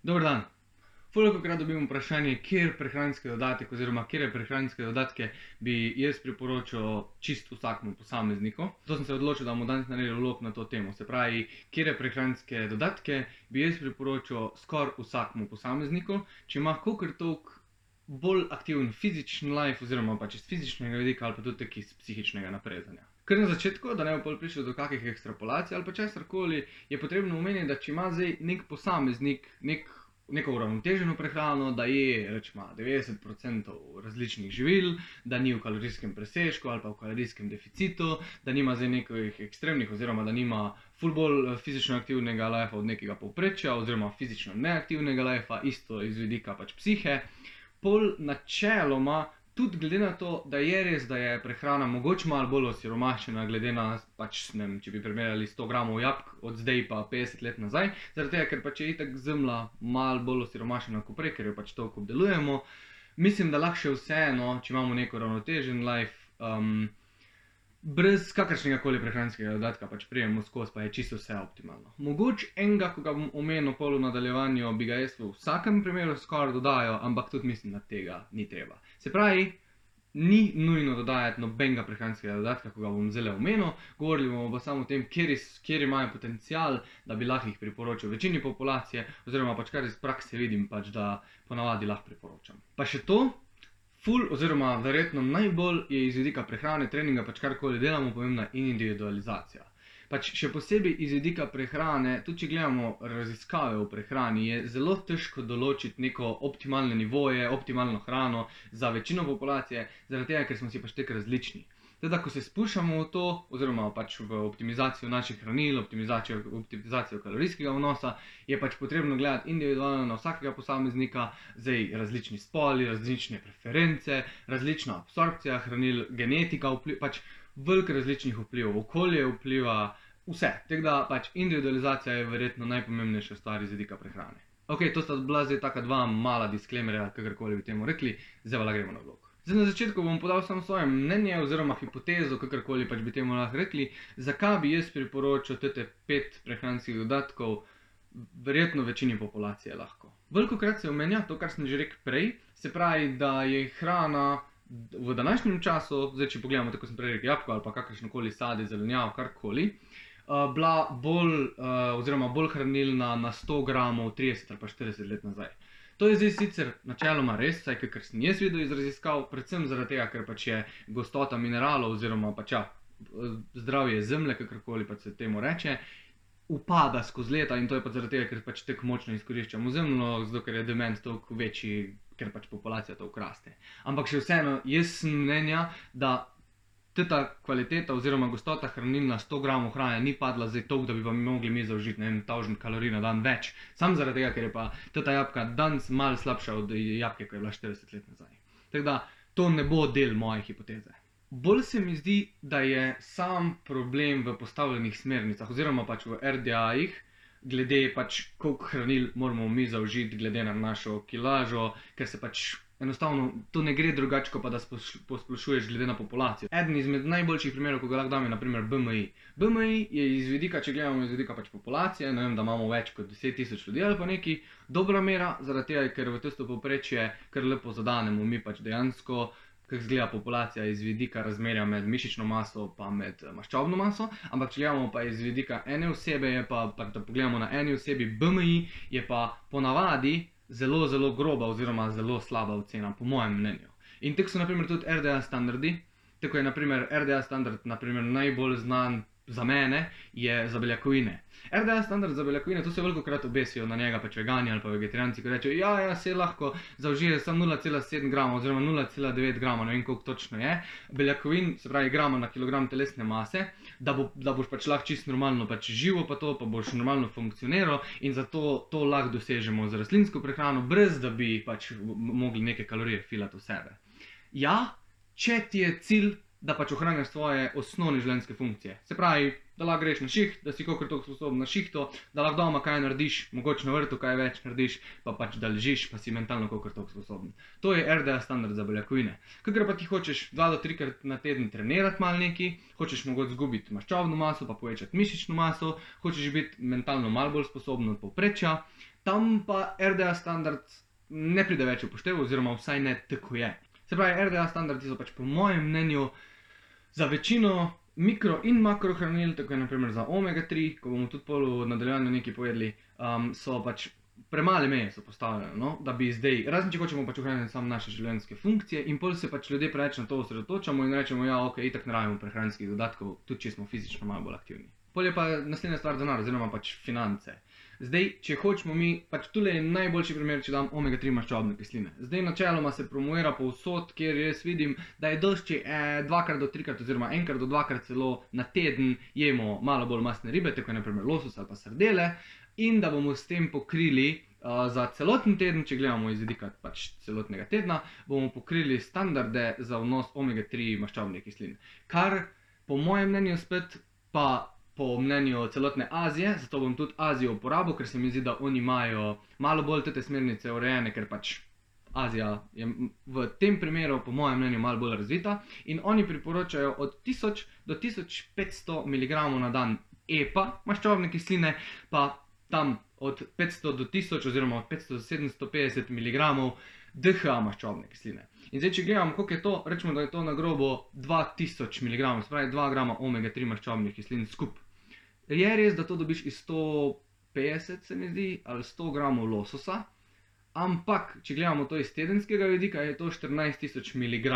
Dober dan. Velikokrat dobim vprašanje, kjer prehranski dodatek oziroma kje prehranske dodatke bi jaz priporočal čist vsakmu posamezniku. Zato sem se odločil, da bomo danes naredili vlog na to temo. Se pravi, kje prehranske dodatke bi jaz priporočal skoraj vsakmu posamezniku, če ima kakor toliko bolj aktiven fizični life oziroma pač iz fizičnega vidika ali pa tudi tako iz psihičnega naprezanja. Ker na začetku, da ne bo prišlo do kakih ekstrapolacij ali pa česarkoli, je potrebno omeniti, da če ima zdaj nek posameznik neko uravnoteženo prehrano, da je rečemo 90% različnih živil, da ni v kalorijskem presežku ali pa v kalorijskem deficitu, da nima zdaj nekih ekstremnih oziroma da nima ful bolj fizično aktivnega lifea od nekega povprečja oziroma fizično neaktivnega lifea, isto iz vidika pač psihe. Pol načeloma, tudi glede na to, da je res, da je prehrana mogoče malo bolj osiromašena, glede na, pač, ne vem, če bi primerjali 100 gramov jabolk od zdaj pa 50 let nazaj, zaradi tega, ker pač je itak zemlja malo bolj osiromašena kot prej, ker jo pač toliko obdelujemo. Mislim, da lahko še vseeno, če imamo neko uravnotežen life, brez kakršnega koli prehranskega dodatka pač prijemo skozi, pa je čisto vse optimalno. Mogoče enega, ko ga bom omenil pol v nadaljevanju, bi ga jaz v vsakem primeru skoraj dodajal, ampak tudi mislim, da tega ni treba. Se pravi, ni nujno dodajati nobenega prehranskega dodatka, ko ga bom zdaj omenil, govorili bomo pa samo o tem, kjer imajo potencial, da bi lahko jih priporočil večini populacije, oziroma pač kar iz prakse vidim, pač da ponavadi lahko priporočam. Pa še to, oziroma verjetno najbolj je iz vidika prehrane, treninga, pač karkoli delamo, pomembna individualizacija. Pač še posebej iz vidika prehrane, tudi če gledamo raziskave v prehrani, je zelo težko določiti neko optimalne nivoje, optimalno hrano za večino populacije, zaradi tega, ker smo si pač tako različni. Teda, ko se spuščamo v to, oziroma pač v optimizacijo naših hranil, optimizacijo kalorijskega vnosa, je pač potrebno gledati individualno na vsakega posameznika, zdaj različni spoli, različne preference, različna absorpcija hranil, genetika pač veliko različnih vplivov, okolje vpliva, vse. Tako da pač individualizacija je verjetno najpomembnejša stvar iz vidika prehrane. Ok, to sta bila zdaj taka dva mala disklemerja, kakorkoli bi temu rekli, zdaj pa gremo na vlog. Zdaj na začetku bom podal samo svoje mnenje oziroma hipotezo, kakorkoli pač bi temu lahko rekli, zakaj bi jaz priporočal tete 5 prehranskih dodatkov verjetno večini populacije lahko. Velikokrat se omenja to, kar sem že rekel prej, se pravi, da je hrana v današnjem času, zdaj če pogledamo, tako sem prej rekel, jabolko ali pa kakršnokoli sadje, zelenjavo, karkoli, bila bolj hranilna na 100 gramov 30 ali pa 40 let nazaj. To je zdaj sicer načeloma res, saj kakor sem jaz videl iz raziskav, predvsem zaradi tega, ker pač je gostota mineralov oziroma pač zdravje zemlje, kakorkoli pač se temu reče, upada skozi leta in to je pač zaradi tega, ker pač tako močno izkoriščamo zemljo, zato ker je demand toliko večji, ker pač populacija toliko raste. Ampak še vseeno, jaz sem mnenja, da ta kvaliteta oziroma gostota hranil na 100 gramov hrane ni padla zdaj toliko, da bi pa mogli mi zaužiti 1000 kalorij na dan več. Sam zaradi tega, ker je pa ta jabolka danes malo slabša od jabolke, ko je bila 40 let nazaj. Tako da to ne bo del moje hipoteze. Bolj se mi zdi, da je sam problem v postavljenih smernicah oziroma pač v RDA-jih, glede pač koliko hranil moramo mi zaužiti glede na našo kilažo, ker se pač enostavno to ne gre drugače, kot pa da posplošuješ glede na populacijo. Eden izmed najboljših primerov, ko ga lahko dam, je na primer BMI. BMI je iz vidika, če gledamo iz vidika pač populacije, ne vem, da imamo več kot 10 000 ljudi ali pa neki, dobra mera, zaradi tega, ker v tisto povprečje kar lepo zadanemo mi pač dejansko, kako izgleda populacija iz vidika razmerja med mišično maso pa med maščobno maso, ampak če gledamo pa iz vidika ene osebe, je pa da pogledamo na eni osebi BMI, je pa ponavadi zelo, zelo groba oziroma zelo slaba ocena, po mojem mnenju. In tako so naprimer tudi RDA standardi, tako je naprimer RDA standard najbolj znan za mene, je za beljakovine. RDA standard za beljakovine, to se velikokrat obesijo na njega pač vegani ali pa vegetarijanci, ko rečejo, ja, se lahko zaužije samo 0,7 grama oziroma 0,9 grama, ne vem koliko točno je, beljakovin, se pravi grama na kilogram telesne mase, da boš pač lahko čisto normalno pač živo pa to, pa boš normalno funkcioniral in zato to lahko dosežemo z rastlinsko prehrano, brez da bi pač mogli neke kalorije filati v sebe. Ja, če ti je cilj da pač ohranjaš svoje osnovne življenjske funkcije. Se pravi, da lahko greš na šiht, da si kolikor toliko sposoben na šihtu, da lahko doma kaj narediš, mogoče na vrtu kaj več narediš, pa pač da ležiš, pa si mentalno kolikor toliko sposoben. To je RDA standard za beljakovine. Kakor pa ti hočeš 2 do 3 krat na teden trenirati malo neki, hočeš mogoče zgubiti maščobno maso, pa povečati mišično maso, hočeš biti mentalno malo bolj sposoben od povprečja, tam pa RDA standard ne pride več v poštev, oziroma vsaj ne tako je. Se pravi, RDA standardi so pač po mojem mnenju za večino mikro in makrohranil, tako je naprimer za omega 3, ko bomo tudi pol v nadaljevanju nekaj povedali, so pač premale meje so postavljene, no? Da bi zdaj, razen če hočemo pač ohraniti samo naše življenjske funkcije in pol se pač ljudje preveč na to osredotočamo in rečemo, ja, ok, itak ne rabimo prehranskih dodatkov, tudi če smo fizično malo bolj aktivni. Pol je pa naslednja stvar denar, oziroma pač finance. Zdaj, če hočemo mi, pač tule je najboljši primer, če dam omega 3 maščobne kisline. Zdaj načeloma se promovira povsod, kjer jaz vidim, da je dosti, če 2 do 3 krat oziroma 1 do 2 krat celo na teden jemo malo bolj mastne ribe, tako je naprimer losos ali pa sardele, in da bomo s tem pokrili za celoten teden, če gledamo iz vidika pač celotnega tedna, bomo pokrili standarde za vnos omega 3 maščobne kisline. Kar po mojem mnenju spet pa po mnenju celotne Azije, zato bom tudi Azijo uporabil, ker se mi zdi, da oni imajo malo bolj te smernice urejene, ker pač Azija je v tem primeru po mojem mnenju malo bolj razvita in oni priporočajo od 1000 do 1500 mg na dan EPA maščobne kisline, pa tam od 500 do 1000 oziroma od 500 do 750 mg DHA maščobne kisline. In zdaj, če gledamo, koliko je to, rečemo, da je to na grobo 2000 mg, se pravi 2 grama omega 3 maščobnih kislin skup. Je res, da to dobiš iz 150, se mi zdi, ali 100 gramov lososa, ampak, če gledamo to iz tedenskega vidika, je to 14000 mg,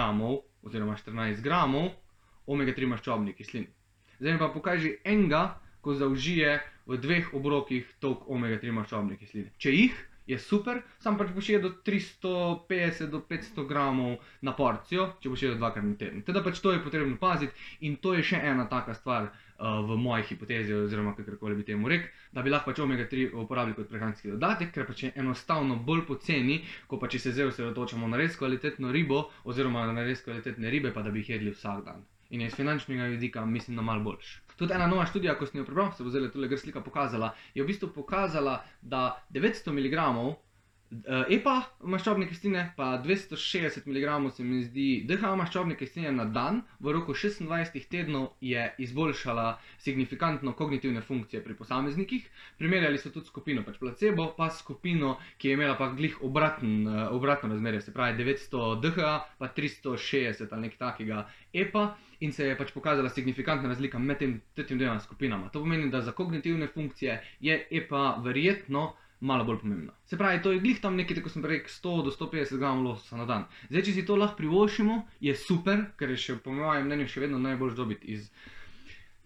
oziroma 14 gramov omega 3 maščobnih kislin. Zdaj mi pa pokaži enega, ko zaužije v 2 obrokih toliko omega 3 maščobne kisline. Če jih, je super, sam pač boš jedel 350 do 500 gramov na porcijo, če boš jedel 2 krat na teden. Teda pač to je potrebno paziti in to je še ena taka stvar v moji hipotezi, oziroma kakorkoli bi temu rekel, da bi lahko pač omega 3 uporabili kot prehranski dodatek, ker pač je enostavno bolj poceni, ko pa če se zdaj osredotočamo na res kvalitetno ribo, oziroma na res kvalitetne ribe, pa da bi jih jedli vsak dan. In iz finančnega vidika mislim, da malo boljš. Tudi ena nova študija, ko sem jo prebral, se bo zdaj tule gr slika pokazala, je v bistvu pokazala, da 900 mg EPA maščobne kisline, pa 260 mg se mi zdi DHA maščobne kisline na dan v roku 26 tednov je izboljšala signifikantno kognitivne funkcije pri posameznikih. Primerjali so tudi skupino pač placebo, pa skupino, ki je imela pa glih obratno razmerje, se pravi 900 DHA, pa 360 ali nekaj takega EPA. In se je pač pokazala signifikantna razlika med tem dvema skupinama. To pomeni, da za kognitivne funkcije je EPA verjetno malo bolj pomembna. Se pravi, to je glih tam nekaj, tako sem rekel, 100 do 150 gramov lososa na dan. Zdaj, če si to lahko privoščimo, je super, ker je še po mojem mnenju še vedno najbolj dobiti iz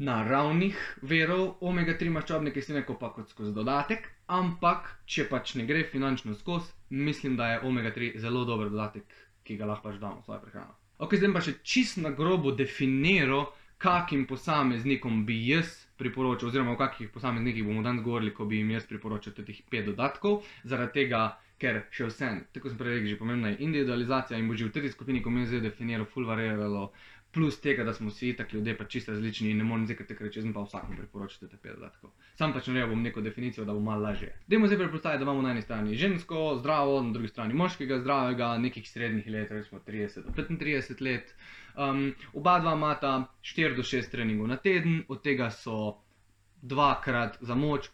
naravnih virov omega 3 maščobne kisline, ko pa kot skozi dodatek, ampak če pač ne gre finančno skozi, mislim, da je omega 3 zelo dober dodatek, ki ga lahko pač damo v svojo prehrano. Ok, zdaj pa še čisto na grobo definiral, kakim posameznikom bi jaz priporočal, oziroma o kakih posameznikih bomo danes govorili, ko bi jim jaz priporočal teh 5 dodatkov, zaradi tega, ker še vsem, tako sem prej rekel, že pomembna je individualizacija in bo že v tej skupini, ko mi zdaj definiral, ful variiralo, plus tega, da smo vsi itak ljudje pač čisto različni in ne morem zdaj kar reči, jaz pa vsakom priporočal te 5 dodatkov. Sam pač naredil bom neko definicijo, da bo malo lažje. Dajmo zdaj predpostaviti, da imamo na eni strani žensko, zdravo, na drugi strani moškega, zdravega, nekih srednjih let, recimo 30 do 35 let. Oba dva imata 4 do 6 treningov na teden, od tega so 2-krat za moč,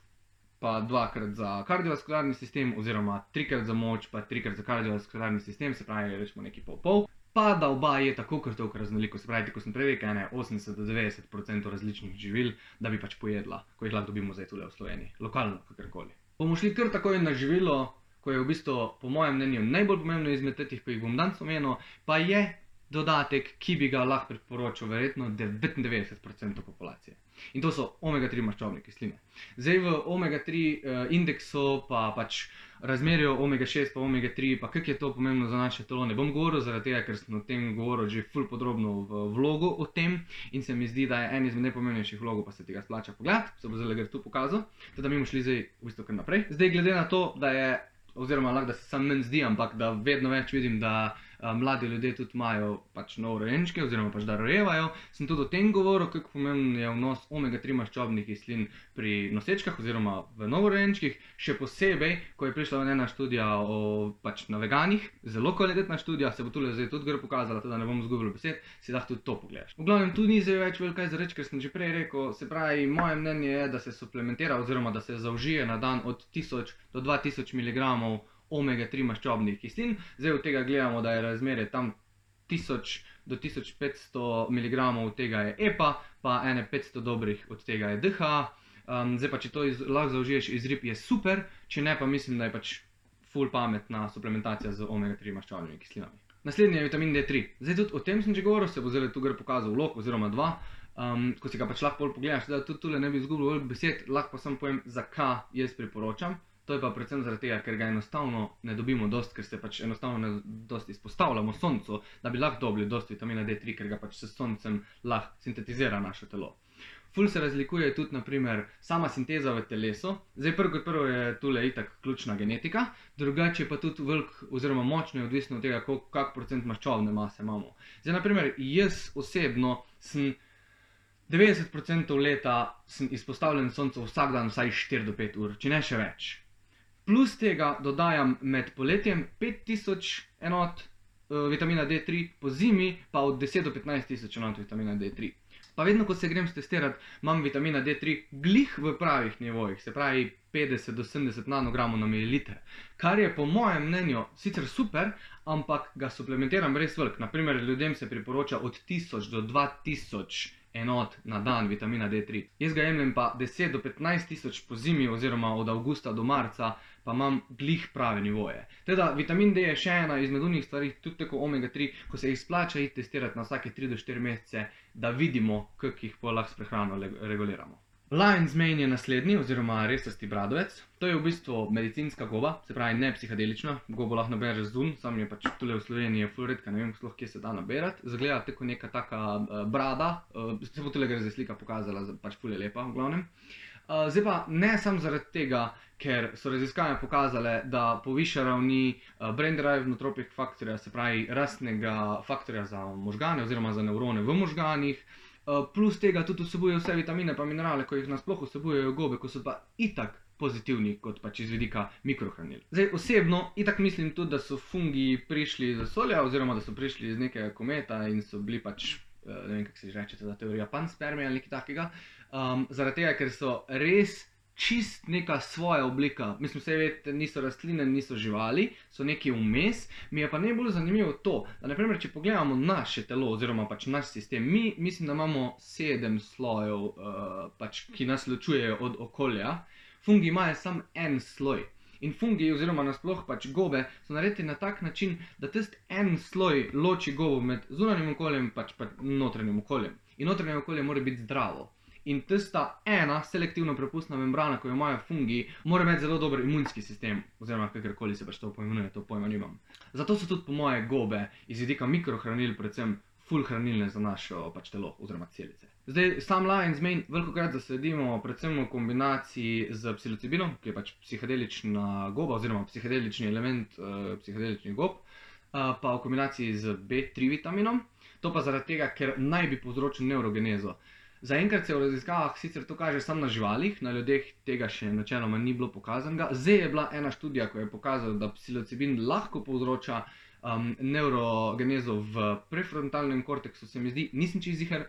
pa 2-krat za kardiovaskularni sistem, oziroma 3-krat za moč, pa 3-krat za kardiovaskularni sistem, se pravi, rečemo nekaj pol-pol. Pa da oba je tako kot toliko raznoliko, se pravi, ko sem prej rekel, 80 do 90% različnih živil, da bi pač pojedla, ko jih lahko dobimo zdaj tule v Sloveniji, lokalno, kakorkoli. Bomo šli kar takoj na živilo, ko je v bistvu, po mojem mnenju, najbolj pomembno izmed teh, ko jih bom danes omenil, pa je dodatek, ki bi ga lahko priporočil verjetno 99% populacije. In to so omega 3 maščobne kisline. Zdaj v omega 3 indeksu, pa pač razmerju omega 6 pa omega 3, pa kako je to pomembno za naše telo, ne bom govoril, zaradi tega, ker sem o tem govoril že ful podrobno v vlogu o tem in se mi zdi, da je en izmed najpomembnejših vlogov, pa se tega splača pogledati, se bo zdaj tu pokazal, teda mi bomo šli zdaj v bistvu kar naprej. Zdaj glede na to, da je, oziroma lahko da se sam meni zdi, ampak da vedno več vidim, da mladi ljudje tudi imajo pač novorojenčke oziroma pač da rojevajo, sem tudi o tem govoril, kako pomemben je vnos omega-3 maščobnih kislin pri nosečkah oziroma v novorojenčkih, še posebej, ko je prišla ena študija pač na veganih, zelo kvalitetna študija, se bo tule zdaj tudi gor pokazala, da ne bom izgubil besed, si lahko tudi to pogledaš. V glavnem, tu ni zdaj več veliko za reči, ker sem že prej rekel, se pravi, moje mnenje je, da se suplementira oziroma da se zaužije na dan od 1000 do 2000 mg omega-3 maščobnih kislin. Zdaj od tega gledamo, da je razmerje tam 1000 do 1500 mg od tega je EPA, pa ene 500 dobrih od tega je DHA. Zdaj pa, če to lahko zaužiješ iz rib, je super, če ne, pa mislim, da je pač ful pametna suplementacija z omega-3 maščobnimi kislinami. Naslednji je vitamin D3. Zdaj tudi o tem sem že govoril, se bo zdaj tu gre pokazal vlog oziroma dva, ko si ga pač lahko pogledaš, da tudi tule ne bi izgubil veliko besed, lahko pa samo povem, zakaj jaz priporočam. To je pa predvsem zaradi tega, ker ga enostavno ne dobimo dosti, ker se pač enostavno ne dosti izpostavljamo soncu, da bi lahko dobili dosti vitamina D3, ker ga pač s soncem lahko sintetizira naše telo. Ful se razlikuje tudi, naprimer, sama sinteza v telesu. Zdaj prvo kot prvo je tule itak ključna genetika, drugače pa tudi veliko oziroma močno je odvisno od tega, kak procent maščobne mase imamo. Zdaj, naprimer, jaz osebno sem 90% leta sem izpostavljen soncu vsak dan vsaj 4 do 5 ur, če ne še več. Plus tega dodajam med poletjem 5000 enot vitamina D3, po zimi pa od 10 do 15 tisoč enot vitamina D3. Pa vedno, ko se grem stestirati, imam vitamina D3 glih v pravih nivojih, se pravi 50 do 70 nanogramov na mililiter, kar je po mojem mnenju sicer super, ampak ga suplementiram res veliko. Naprimer, ljudem se priporoča od 1000 do 2000 enot na dan vitamina D3. Jaz ga jemljem pa 10 do 15 tisoč po zimi oziroma od avgusta do marca, pa imam glih prave nivoje. Teda vitamin D je še ena izmed unih stvari, tudi tako omega-3, ko se jih splača iti testirati na vsake 3 do 4 mesece, da vidimo, kako jih lahko s prehrano reguliramo. Lion's Mane je naslednji, oziroma resasti bradovec. To je v bistvu medicinska goba, se pravi ne psihadelična. Gobo lahko nabereš zunj, sam je pač tule v Sloveniji ful redka, ne vem sploh, kje se da naberati. Zgleda tako neka taka brada, se bo tule gre zdaj slika pokazala, pač ful je lepa v glavnem. Zdaj pa ne samo zaradi tega, ker so raziskave pokazale, da poviša ravni brain-derived nootropic faktorja, se pravi rastnega faktorja za možgane oziroma za nevrone v možganih. Plus tega tudi vsebuje vse vitamine pa minerale, ko jih nasploh vsebujejo gobe, ko so pa itak pozitivni kot pač iz vidika mikrohranil. Zdaj osebno itak mislim tudi, da so fungi prišli iz vesolja oziroma da so prišli iz nekega kometa in so bili pač, ne vem kako se reče, ta teorija panspermija ali nekaj takega, zaradi tega, ker so res čist neka svoja oblika. Mislim, vse vedete, niso rastline, niso živali, so neki vmes. Mi je pa najbolj zanimivo to, da naprimer, če pogledamo naše telo oziroma pač naš sistem, mi mislim, da imamo 7 slojev, pač, ki nas ločujejo od okolja. Fungi imajo samo en sloj. In fungi oziroma nasploh pač gobe so naredili na tak način, da tisti en sloj loči gobo med zunanjim okoljem pač notranjim okoljem. In notranje okolje mora biti zdravo. In tista ena selektivno prepustna membrana, ko jo imajo fungi, mora imeti zelo dober imunski sistem, oziroma kakorkoli se pač to poimenuje, to pojma nimam. Zato so tudi po moje gobe iz vidika mikrohranil predvsem ful hranilne za naše pač telo oziroma celice. Zdaj, sam Lion's Mane velikokrat zasledimo predvsem v kombinaciji z psilocibinom, ki je pač psihedelična goba oziroma psihedelični element psihedeličnih gob, pa v kombinaciji z B3 vitaminom. To pa zaradi tega, ker naj bi povzročil neurogenezo. Zaenkrat se v raziskavah sicer to kaže samo na živalih, na ljudeh tega še načeloma ni bilo pokazanega. Zdaj je bila ena študija, ko je pokazala, da psilocibin lahko povzroča neurogenezo v prefrontalnem korteksu, se mi zdi, nisem čisto ziher,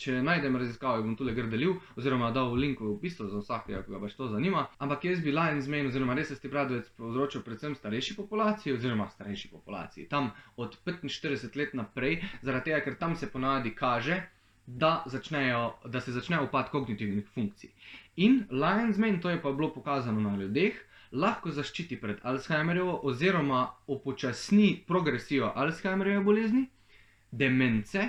če najdem raziskave, bom tule gor delil, oziroma dal link v opisu za vsakega, ki ga pač to zanima. Ampak jaz bi Lion's Mane oziroma resasti bradovec povzročil predvsem starejši populaciji, tam od 45 let naprej, zaradi tega, ker tam se ponavadi kaže, da se začne upad kognitivnih funkcij. In Lion's Mane, to je pa bilo pokazano na ljudeh, lahko zaščiti pred Alzheimerjevo oziroma upočasni progresijo Alzheimerjeve bolezni, demence,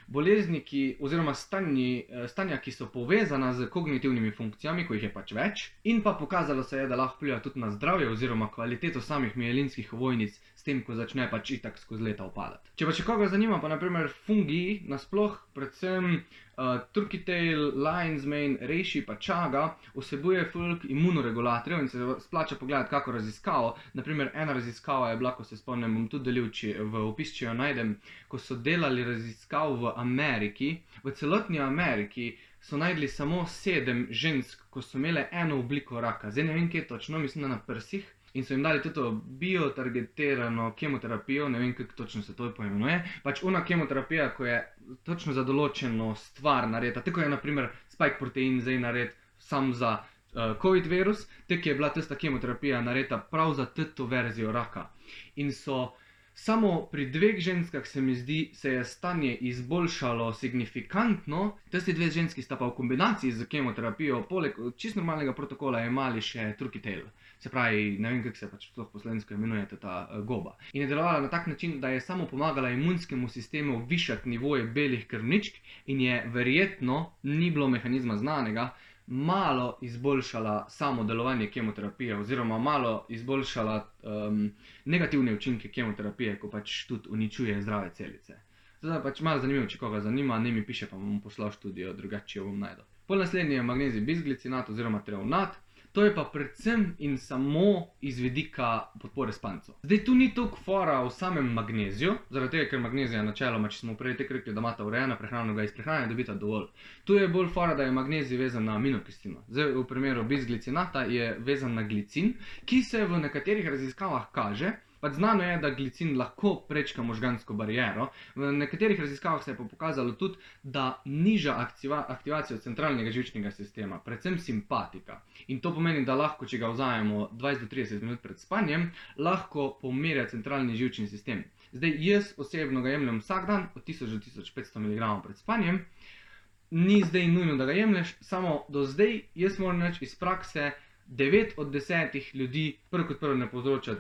bolezni, oziroma stanja, ki so povezana z kognitivnimi funkcijami, ko jih je pač več, in pa pokazalo se je, da lahko vpliva tudi na zdravje oziroma kvaliteto samih mielinskih ovojnic, s tem, ko začne pač itak skozi leta upadati. Če pa še koga zanima, pa naprimer fungi nasploh, predvsem Turkey Tail, Lion's Mane, Reishi pa Chaga vsebuje ful imunoregulatorjev in se splača pogledati kako raziskavo. Naprimer, ena raziskava je bila, ko se spomnim, bom tudi delil v opis, če jo najdem, ko so delali raziskav v Ameriki. V celotni Ameriki so najdli samo 7 žensk, ko so imele eno obliko raka. Zdaj ne vem, kje točno, mislim, da na prsih. In so jim dali tudi biotargetirano kemoterapijo, ne vem, kako točno se to poimenuje. Pač ona kemoterapija, ko je točno za določeno stvar narejena, tako je naprimer spike protein zdaj nared sam za COVID virus, tako je bila tista kemoterapija narejena prav za to verzijo raka. In so samo pri 2 ženskah, se mi zdi, se je stanje izboljšalo signifikantno. Tisti 2 ženski sta pa v kombinaciji z kemoterapijo, poleg čisto normalnega protokola, imeli še Turkey Tail. Se pravi, ne vem, kako se pač sploh po slovensko imenuje ta goba. In je delovala na tak način, da je samo pomagala imunskemu sistemu višati nivoje belih krvničk in je verjetno, ni bilo mehanizma znanega, malo izboljšala samo delovanje kemoterapije oziroma malo izboljšala negativne učinke kemoterapije, ko pač tudi uničuje zdrave celice. Zdaj pač malo zanimivo, če koga zanima, ne mi piše, pa bom poslal študijo, drugače jo bom najdel. Pol naslednji je magnezij bisglicinat oziroma treonat. To je pa predvsem in samo iz vidika podpore spancu. Zdaj, tu ni toliko fora v samem magneziju, zaradi tega, ker magnezija načeloma, če smo prej tako rekli, da imata urejena prehrano, ga iz prehrane dobita dovolj. Tu je bolj fora, da je magnezij vezan na aminokislino. Zdaj, v primeru bisglicinata je vezan na glicin, ki se v nekaterih raziskavah kaže, pač znano je, da glicin lahko prečka možgansko bariero. V nekaterih raziskavah se je pa pokazalo tudi, da niža aktivacijo centralnega živčnega sistema, predvsem simpatika. In to pomeni, da lahko, če ga vzamemo 20 do 30 minut pred spanjem, lahko pomirja centralni živčni sistem. Zdaj, jaz osebno ga jemljem vsak dan, od 1000 do 1500 mg pred spanjem. Ni zdaj nujno, da ga jemlješ, samo do zdaj, jaz moram reči iz prakse, 9 od 10 ljudi prvo kot prvo ne povzroča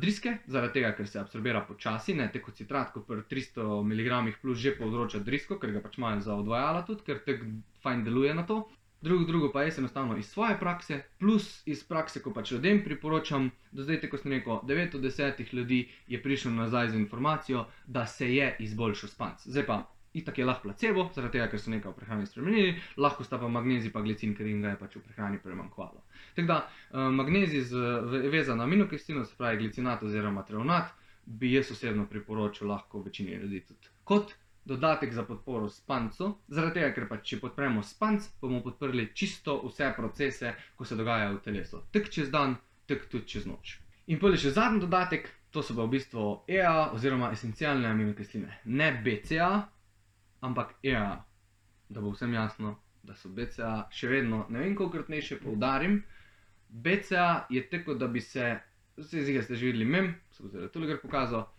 driske, zaradi tega, ker se absorbira počasi, ne tako citrat, kot pri 300 mg plus že povzroča drisko, ker ga pač imajo za odvajala tudi, ker tako fajn deluje na to. Drugo pa jaz enostavno iz svoje prakse, plus iz prakse, ko pač ljudem priporočam, do zdaj, tako sem rekel, 9 od 10 ljudi je prišlo nazaj z informacijo, da se je izboljšal spanc. Zdaj pa, itak je lahko placebo, zaradi tega, ker so nekaj v prehrani spremenili, lahko sta pa magnezij pa glicin, ker jim ga je pač v prehrani premanjkovalo. Tako da, magnezij vezan na aminokislino, se pravi glicinat oziroma treonat, bi jaz osebno priporočil lahko večini ljudi tudi kot dodatek za podporo spancu, zaradi tega, ker pač če podpremo spanc, bomo podprli čisto vse procese, ko se dogajajo v telesu. Tak čez dan, tak tudi čez noč. In potem še zadnji dodatek, to so pa v bistvu EA oziroma esencialne aminokisline. Ne BCA, ampak EA. Da bo vsem jasno, da so BCA še vedno, ne vem kolikokrat naj še poudarim, BCA je tako, da bi se, zdaj ste že videli mem, se bo zdaj tudi pokazal,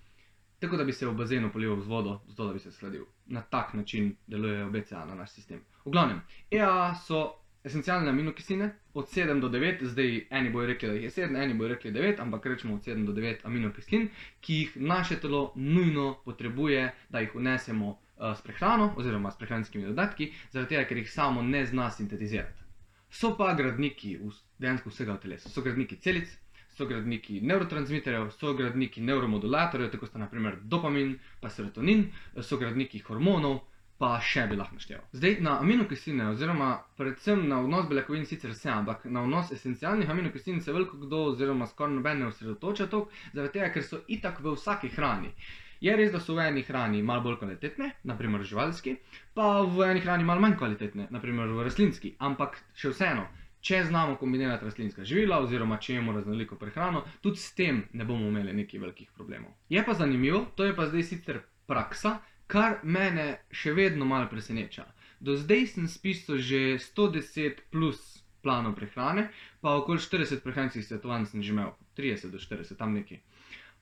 tako da bi se v bazenu polival z vodo, zato da bi se shladil. Na tak način delujejo BCA na naš sistem. V glavnem, EA so esencialne aminokisline od 7 do 9, zdaj eni bojo rekli, da jih je 7, eni bojo rekli 9, ampak rečemo od 7 do 9 aminokislin, ki jih naše telo nujno potrebuje, da jih vnesemo s prehrano oziroma s prehranskimi dodatki, zaradi tega, ker jih samo ne zna sintetizirati. So pa gradniki dejansko vsega v telesu. So gradniki celic, so gradniki nevrotransmiterjev, so gradniki neuromodulatorjev, tako sta naprimer dopamin pa serotonin, so gradniki hormonov, pa še bi lahko našteval. Zdaj, na aminokisline oziroma predvsem na vnos beljakovin sicer se, ampak na vnos esencialnih aminokislin se veliko kdo oziroma skoraj noben ne osredotoča toliko, zaradi tega, ker so itak v vsaki hrani. Je res, da so v eni hrani malo bolj kvalitetne, naprimer živalski, pa v eni hrani malo manj kvalitetne, naprimer v rastlinski, ampak še vseeno, če znamo kombinirati rastlinska živila oziroma če imamo raznoliko prehrano, tudi s tem ne bomo imeli nekih velikih problemov. Je pa zanimivo, to je pa zdaj sicer praksa, kar mene še vedno malo preseneča. Do zdaj sem spisal že 110 plus planov prehrane, pa okoli 40 prehranskih svetovanj sem že imel, 30 do 40, tam nekaj.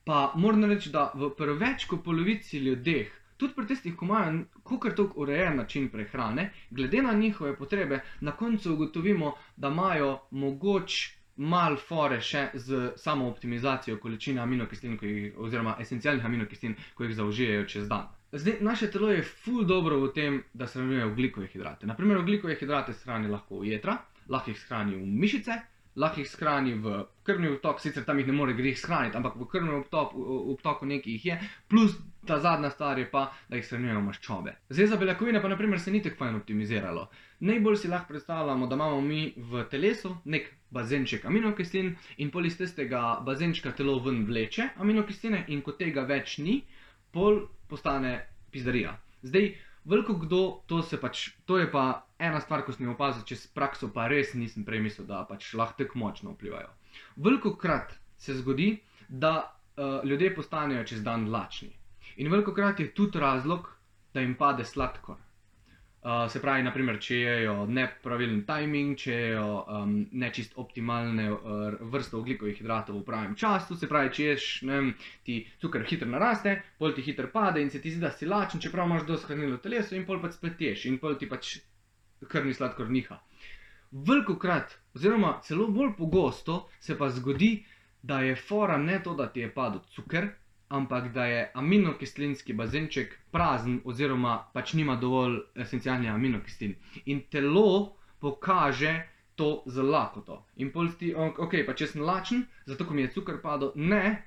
Pa moram reči, da pri več kot polovici ljudeh, tudi pri tistih, ko imajo kakor toliko urejen način prehrane, glede na njihove potrebe, na koncu ugotovimo, da imajo mogoče malo fore še z samo optimizacijo količine aminokislin, oziroma esencialnih aminokislin, ko jih zaužijejo čez dan. Zdaj, naše telo je ful dobro v tem, da shranjuje ogljikove hidrate. Naprimer, ogljikove hidrate shrani lahko v jetra, lahko jih shrani v mišice, lahko jih shrani v krvni obtok, sicer tam jih ne more greh shraniti, ampak v krvnem obtoku nekaj jih je, plus ta zadnja stvar je pa, da jih shranjujejo maščobe. Zdaj za beljakovine pa naprimer se ni tako fajn optimiziralo. Najbolj si lahko predstavljamo, da imamo mi v telesu nek bazenček aminokislin in pol iz tistega bazenčka telo ven vleče aminokisline in ko tega več ni, pol postane pizdarija. Zdaj, veliko kdo, to je pa ena stvar, ko sem jo opazil čez prakso, pa res nisem prej mislil, da pač lahko tako močno vplivajo. Velikokrat se zgodi, da ljudje postanejo čez dan lačni. In velikokrat je tudi razlog, da jim pade sladkor. Se pravi, naprimer, če jejo nepravilen timing, če jejo nečist optimalne vrste ogljikovih hidratov v pravem času, se pravi, če ješ, ne vem, ti cukor hitro naraste, pol ti hitro pade in se ti zdi, da si lačen, čeprav imaš dosti hranil v telesu in pol pač spet ješ in pol ti pač krvni sladkor niha. Velikokrat, oziroma celo bolj pogosto, se pa zgodi, da je fora ne to, da ti je padel cukor, ampak da je aminokislinski bazenček prazen oziroma pač nima dovolj esencialnih aminokislin. In telo pokaže to z lakoto. In pol ti, ok, pa če sem lačen, zato ko mi je cukor padel, ne,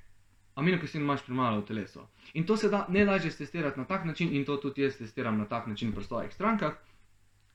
aminokislin imaš premalo v telesu. In to se da najlažje testirati na tak način, in to tudi jaz testiram na tak način pri svojih strankah,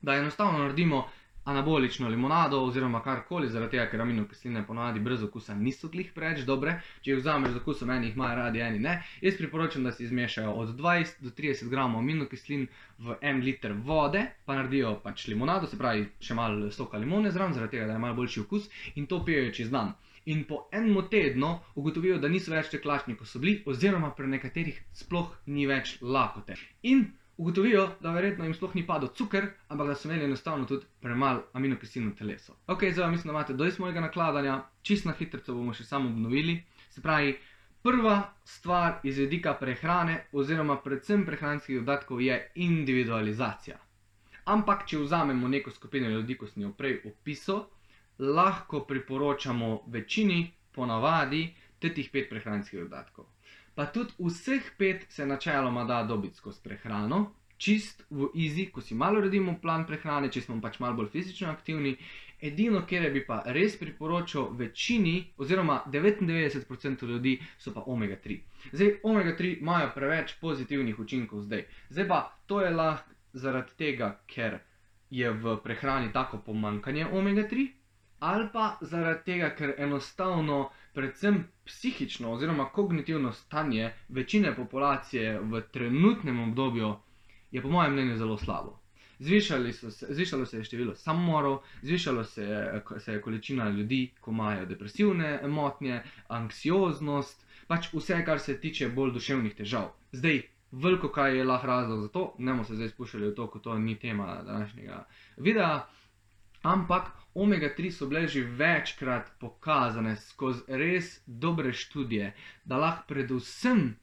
da enostavno naredimo anabolično limonado oziroma karkoli, zaradi tega, ker aminokisline ponavadi brez okusa niso glih preveč dobre. Če jih vzameš z okusom, eni jih imajo radi, eni ne. Jaz priporočam, da si izmešajo od 20 do 30 gramov aminokislin v 1 liter vode, pa naredijo pač limonado, se pravi še malo soka limone zraven, zaradi tega, da je malo boljši okus, in to pijejo čez dan. In po enem tednu ugotovijo, da niso več tako lačni, kot so bili, oziroma pri nekaterih sploh ni več lakote. In ugotovijo, da verjetno jim sploh ni padel cukor, ampak da so imeli enostavno tudi premalo aminokislin v telesu. Ok, zdaj mislim, da imate dosti mojega nakladanja, čisto na hitrico bomo še samo obnovili. Se pravi, prva stvar iz vidika prehrane oziroma predvsem prehranskih dodatkov je individualizacija. Ampak, če vzamemo neko skupino ljudi, ko sem jo prej opisal, lahko priporočamo večini ponavadi teh 5 prehranskih dodatkov. Pa tudi vseh 5 se načeloma da dobiti skozi prehrano, čist v easy, ko si malo uredimo plan prehrane, če smo pač malo bolj fizično aktivni. Edino, kjer bi pa res priporočal večini, oziroma 99% ljudi, so pa omega-3. Zdaj, omega-3 imajo preveč pozitivnih učinkov zdaj. Zdaj pa, to je lahko zaradi tega, ker je v prehrani tako pomanjkanje omega-3, ali pa zaradi tega, ker enostavno predvsem psihično oziroma kognitivno stanje večine populacije v trenutnem obdobju je po mojem mnenju zelo slabo. Zvišalo se je število samomorov, zvišalo se je količina ljudi, ko imajo depresivne motnje, anksioznost, pač vse, kar se tiče bolj duševnih težav. Zdaj, veliko kaj je lahko razlog za to, ne bomo se zdaj spuščali v to, ko to ni tema današnjega videa, ampak omega-3 so bile že večkrat pokazane skozi res dobre študije, da lahko predvsem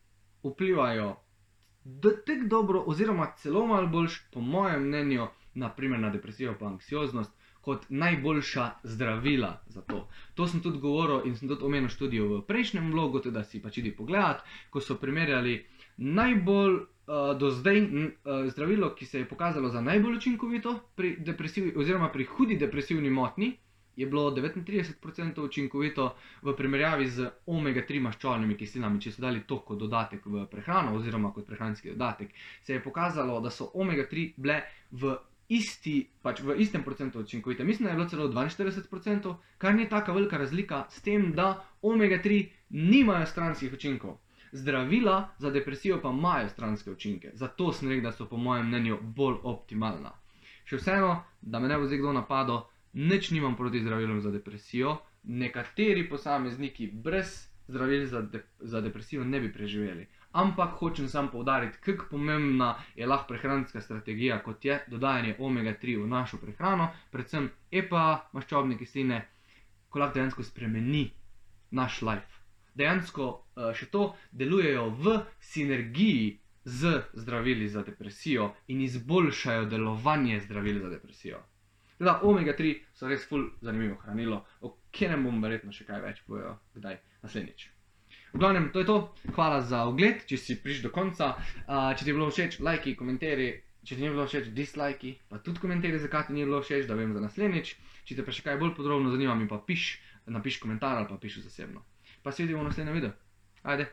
vplivajo tako dobro oziroma celo malo boljš, po mojem mnenju, naprimer na depresijo pa anksioznost, kot najboljša zdravila za to. To sem tudi govoril in sem tudi omenil študijo v prejšnjem vlogu, tudi da si pač idi pogledat, ko so primerjali najbolj do zdaj zdravilo, ki se je pokazalo za najbolj učinkovito pri depresiji oziroma pri hudi depresivni motnji, je bilo 39% učinkovito v primerjavi z omega-3 maščobnimi kislinami, če so dali to kot dodatek v prehrano oziroma kot prehranski dodatek, se je pokazalo, da so omega-3 bile v istem procentu učinkovite. Mislim, da je bilo celo 42%, kar ni taka velika razlika s tem, da omega-3 nimajo stranskih učinkov. Zdravila za depresijo pa imajo stranske učinke, zato sem rekel, da so po mojem mnenju bolj optimalna. Še vseeno, da me ne bo zdaj kdo napadel, nič nimam proti zdravilom za depresijo, nekateri posamezniki brez zdravil za depresijo ne bi preživeli. Ampak hočem samo poudariti, kako pomembna je lahko prehranska strategija, kot je dodajanje omega-3 v našo prehrano, predvsem EPA, maščobne kisline, ko lahko dejansko spremeni naš life. Dejansko še to delujejo v sinergiji z zdravili za depresijo in izboljšajo delovanje zdravil za depresijo. Teda omega-3 so res ful zanimivo hranilo, o katerem bom verjetno še kaj več povedal kdaj naslednjič. V glavnem, to je to. Hvala za ogled, če si prišel do konca. Če ti je bilo všeč, lajki, komentarji, Če ti ni bilo všeč, dislajki, pa tudi komentiraj, zakaj ti ni bilo všeč, da vem za naslednjič. Če te pa še kaj bolj podrobno zanima, mi pa napiš komentar ali pa piši zasebno. Pa se vidimo v naslednjem videu. Ajde!